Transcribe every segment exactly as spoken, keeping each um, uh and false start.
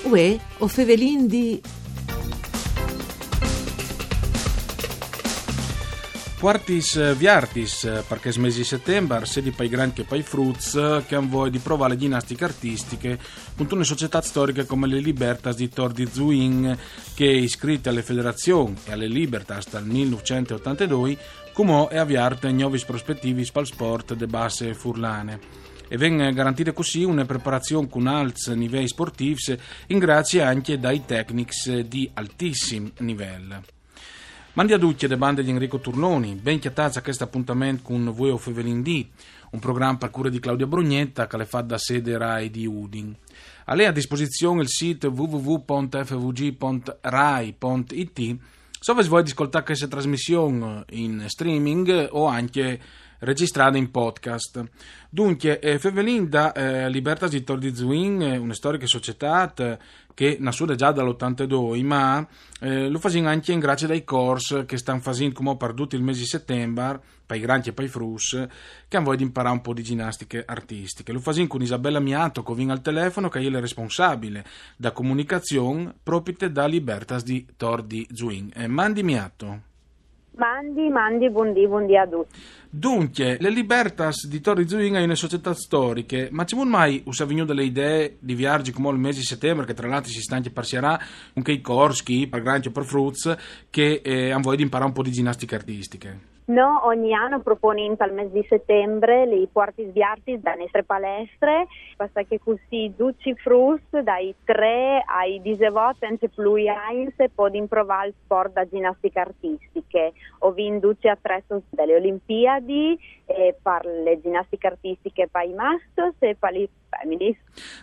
Uè, o fevelin di Puartis, eh, viartis, eh, par chest mesi di setembar, sedi pai grancj che pai fruts, eh, che àn voie di provâ le ginastiche artistiche, cuntune societât storiche come le Libertas di Tor di Zuin, che iscrite ae federazion e ae Libertas dal mil nûfcent e otantedoi, cumò e à viert gnovis prospetivis pal sport de basse furlane. E ven garantide cussì une preparazion cun alts niveis sportifs, in grazie ancje dai tecnics di altissim nivel. Mandi a ducj de bande di Enrico Turnoni, ben cjatâts a chest apontament cun Vuê o fevelin di, un program par cure di Claudia Brugnetta che al è fat da sede Rai di Udin. Al è a disposizion il sit w w w pont f v g pont rai pont i t. Se o vês voie di scoltâ cheste trasmission in streaming o ancje regjistrade in podcast. Duncje, eh, fevelin da, eh, Libertas di Tor di Zuin, eh, une storiche societât, eh, che e à nassût za dal otantedoi, ma, eh, lu fasìn ancje in grazie dai cors che a stan fasint cumò par dut il mesi di setembar, pai grancj e pai fruts, che àn voie di imparâ un pôc di ginastiche artistiche. Lu fasìn cun Isabella Miato, che o vin al telefono, che e je la responsabile da comunicazion propite da Libertas di Tor di Zuin. Eh, mandi Miato. Mandi, mandi, bundì, bundì a ducj. Duncje, le Libertas di Tor di Zuin e je une societât storiche, ma cemût mai us à vignût la idee di viarzi cumò il mesi di setembar, che tra l'altri si sta ancje par sierâ, cun chei cors chi, par grancj o par fruts, che, eh, àn voie di imparâ un pôc di ginastiche artistiche? Nô ogni an o proponìn pal mes di setembar lis puartis viartis de nestre palestre, parcè che cussì ducj i fruts dai trê ai disevot, ancje plui agns, a podin provâ il sport da ginastiche artistiche. O vin ducj i atreços de le Olimpiadi, e par le ginastiche artistiche pai mascjos e pa lis feminis.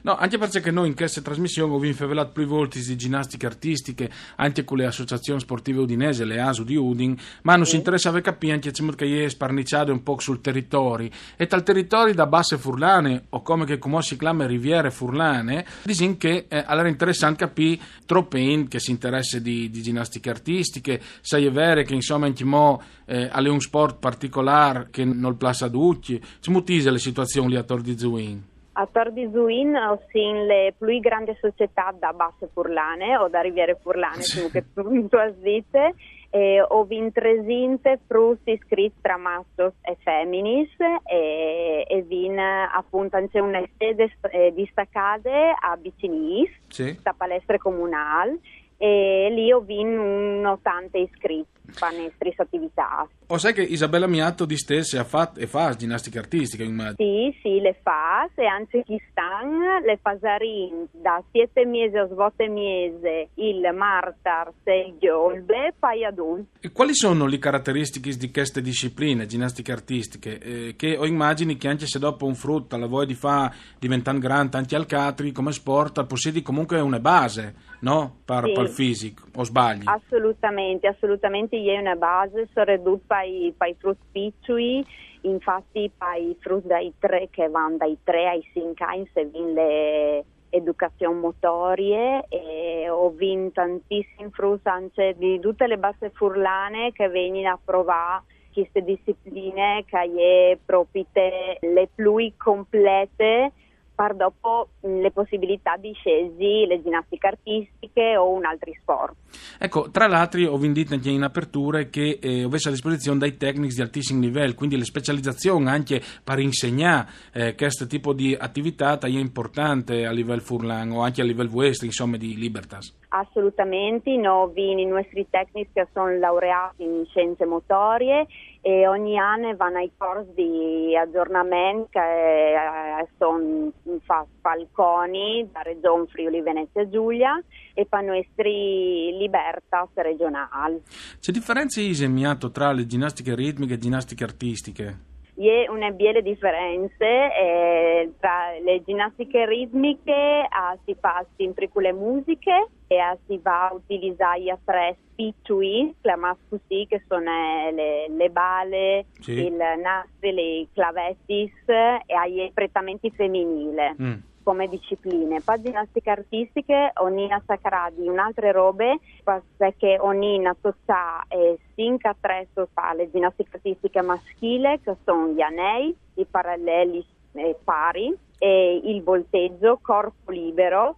No, ancje parcè che nô in cheste trasmission o vin fevelât plui voltis di ginastiche artistiche, ancje cu le associazion sportive udinese, le ASU di Udin, ma nus interessave capî ancje cemût che e je sparniçade un pôc sul teritori. E tal teritori da basse furlane, o come che cumò si clame Riviere Furlane, disìn che, eh, al jere interessant capî trope int che si interesse di, di ginastiche artistiche, se e je vere che, insome, ancjemò, eh, al è un sport particolâr che nol plâs a ducj. Cemût ise le situazion li a Tor di Zuin? A Tor di Zuin o sin le plui grande societât da basse furlane o da Riviere Furlane, sì, come che tu, tu âs dite, e o vin tresinte fruts iscrits tra mascjos e feminis, e, e vin, eh, apont ancje une sede st-, eh, distacade a Bicinîs, sì, sta palestre comunâl, e li o vin un otante iscrits pa nestris ativitâts. O sai che Isabella Miato distesse e à fat e fâs ginastiche artistiche, immagino. Sì, sì, le fâs, e ancje chest an le fasarìn da siet e mieze a vot e mieze il martars e il gjobe, pai adults. E cualis sono lis carateristichis di cheste discipline, ginastiche artistiche, eh, che o imagjini che ancje se dopo un frut al à voie di fâ, diventant grant, ancje alc altri come sport, al pussedi comuncue une base, no? Par, sì, pal fisic, o sbalii? Assolutamentri, assolutamentri, e je une base, soredut pai, pai fruts piçui, infats pai fruts dai trê, che a van dai trê ai cinc agns, o vin le educazion motorie, e o vin tantissim fruts ancje di dute le basse furlane che a vegnin a provâ cheste discipline che e je propite le plui complete, par dopo, mm, le pussibilitât di sielzi le ginastiche artistiche o un altri sport. Eco, tra l'altri o vin dit ancje in aperture che, eh, o vês a disposizion dai tecnics di altissim nivel, cuindi le specializazion ancje par insegnâ, eh, chest tipo di ativitât e je impuartante a nivel furlan o ancje a nivel vuestri, insome, di Libertas. Assolutamentri, nô o vin i nuestris tecnics che a son laureâts in sienze motorie e ogni an a van ai cors di agjornament che, eh, a son fats pal CONI da Regjon Friuli Venezia Giulia e pa nuestri Libertas regjonâl. Ce diference ise, Miato, tra le ginastiche ritmiche e ginastiche artistiche? E je une biele diference, eh, tra le ginastiche ritmiche, ah, si fâs simpri cu le musiche, e, ah, si va a utilizâ i atrezzi piçui, clamâts cussì, che a son, eh, le, le bale, sì, il nastri, lis clavetis, e e je pretementri feminîl, mm, come discipline. Pa ginastiche artistiche o nin a sacrâ di une altre robe, parcè che o nin a toçâ, eh, cinc atreços pa le ginastiche artistiche maschile, che a son i anei, i paraleli, eh, pari, e il volteggio, corpo libero,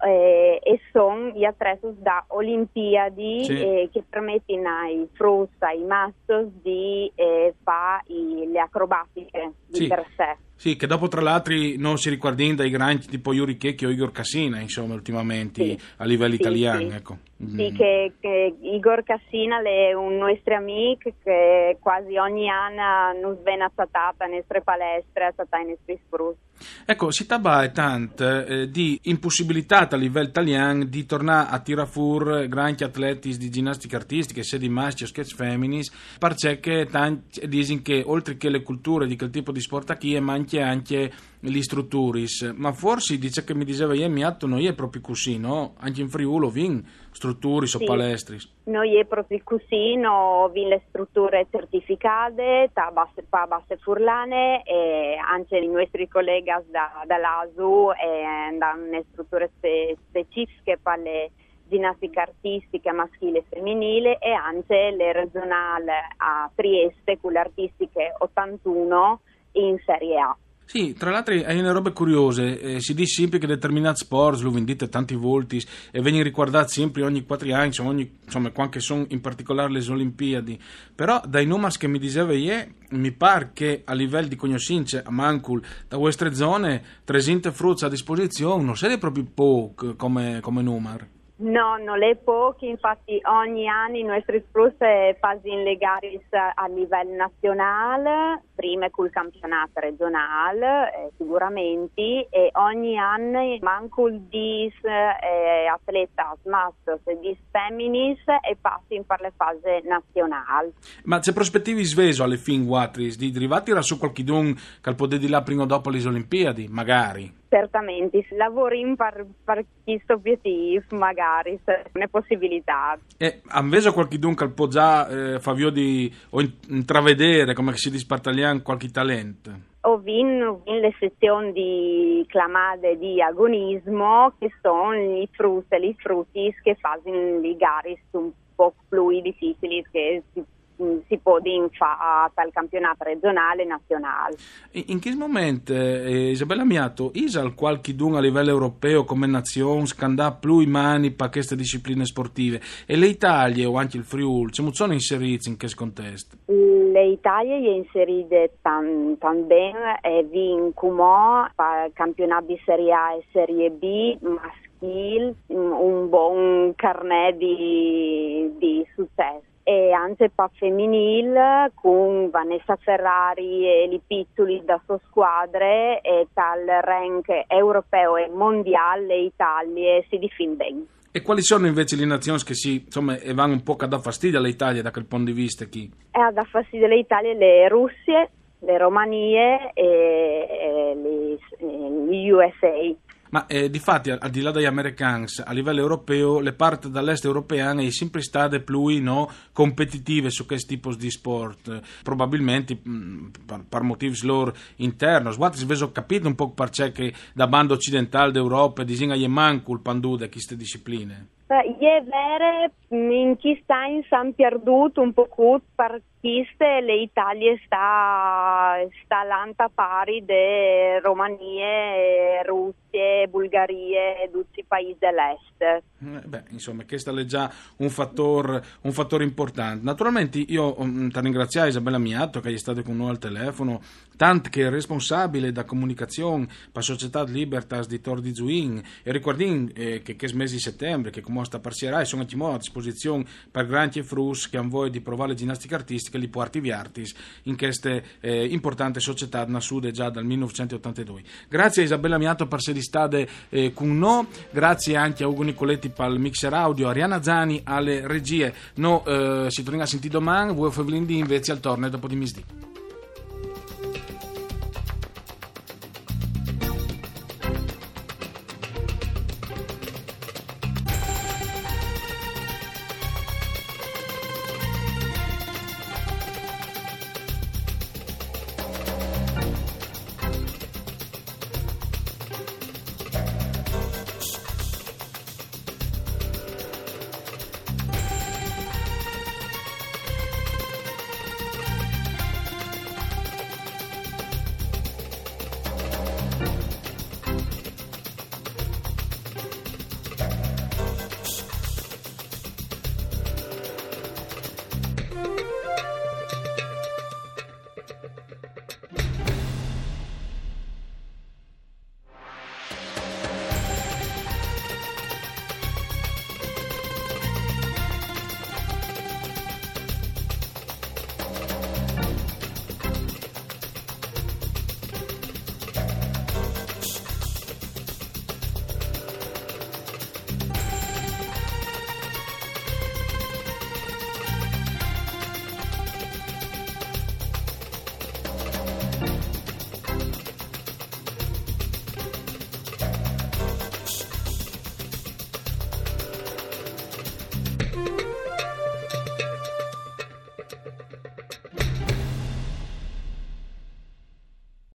eh, e son i atretus da Olimpiadi, Sì. eh, che permettin ai fruts, ai mascjos di, eh, fa i, le acrobatiche di Sì. per sé. Sì, che dopo tra l'altri non si ricordin dai grandi tipo Yuri Checchi o Igor Cassina, insomma, ultimamente Sì. a livello Sì, italiano, sì. Ecco. Sì, che, che Igor Cassina l'è un nuestri amic che quasi ogni anno nus ven a cjatà a nestre palestre, a cjatà i nestris fruts. Ecco, si tabae tant eh, di impossibilità a livello italiano di tornare a tirar fur granchi atletis di ginnastica artistica, sia di mascjos che feminis, perché che tanti dicono che oltre che le culture di quel tipo di sport qui, è manche anche gli strutturis. Ma forse, dice che mi diceva ieri, mi atto non è proprio così, no? Anche in Friuli vin strutturis o Sì. palestris. No je propri cussì, no vin le strutture certificade, ta basse, pa basse furlane, e anche i nuestri colleghi da, da l'ASU, eh, dan une strutture spe-, specifiche per le ginnastica artistica maschile e femminile, e anche le regionale a Trieste con l'artistiche ottantuno in Serie A. Sì, tra l'altro è una roba curiosa, eh, si dice sempre che determinati sport, lo vendite tanti volti, e vengono riguardati sempre ogni quattro anni, insomma, ogni, insomma, quando sono in particolare le Olimpiadi. Però dai numeri che mi diceva ieri, mi pare che a livello di conoscenze a mancul da vostre zone, trescientos fruts a disposizione, non siete proprio poco come, come numero. No, non è poco, infatti ogni anno i nostri fruts fanno le gare a livello nazionale, prima col campionato regionale, eh, sicuramente, e ogni anno mancul dies eh, atletas mascjos e dies feminis e passin per le fase nazionale. Ma c'è prospettivi sveso alle fin guatris di arrivare a su qualchidun che al può di là prima o dopo le Olimpiadi, magari? Certamente, si lavora in par, par questo obiettivo, magari, se è una possibilità. E invece qualchidun che al può già eh, far via di, o in- intravedere, come si dice in italiano, qualche talento? O vin, vin le sezioni di clamade di agonismo, che sono i fruts e i frutis che fanno le gare un po' più difficili che si, si può fare dal campionato regionale e nazionale. In, in che momento, eh, Isabella Miato, isal qualchidun a livello europeo come nazione scandà più i mani per queste discipline sportive? E le Italie o anche il Friuli, come sono inseriti in questo contesto? Le Italie è inserite tan, tan ben e vin cumò per campionato di Serie A e Serie B maschile un, un buon carnet di, di successo. E anche per femminile con Vanessa Ferrari e i piccoli da sua squadra e tal rank europeo e mondiale le Italie si difende ben. E quali sono invece le nazioni che si, insomma, e vanno un po' a dar fastidio all'Italia da quel punto di vista qui? E a dar fastidio all'Italia le Russie, le Romanie e, e le, e le U S A. Ma eh, di fatti, al, al di là dagli americani, a livello europeo, le parti dall'est europeo è sempre state più no, competitive su questo tipo di sport, probabilmente mh, per, per motivi loro interni. Guardate, se ho capito un po' perché che da banda occidentale d'Europa disegna manco il pandù da queste discipline. Beh, è vero, in questi anni si è perduto un po' per queste, le Italie sta, sta lanta pari de Romanie, Russie, Bulgarie e tutti i paesi dell'est. Eh, Beh, insomma, questo è già un fattore, un fattore importante. Naturalmente io mm, ti ringrazio Isabella Miato che è stata con noi al telefono, tant che responsabile da comunicazione per Società Libertas di Tor di Zuin, e ricordin eh, che questo mese di settembre, che come sta parcierai, sono anche a disposizione per granchi e fruts che hanno voglia di provare le ginnastiche artistiche, li porti viartis in queste eh, importante società nassude già dal millenovecentottantadue. Grazie a Isabella Miato per essere state eh, con noi, grazie anche a Ugo Nicoletti per il mixer audio, Arianna Zani alle regie. Noi eh, si torna a sentire domani, voi Fevelin di invece al torne dopo di misdì.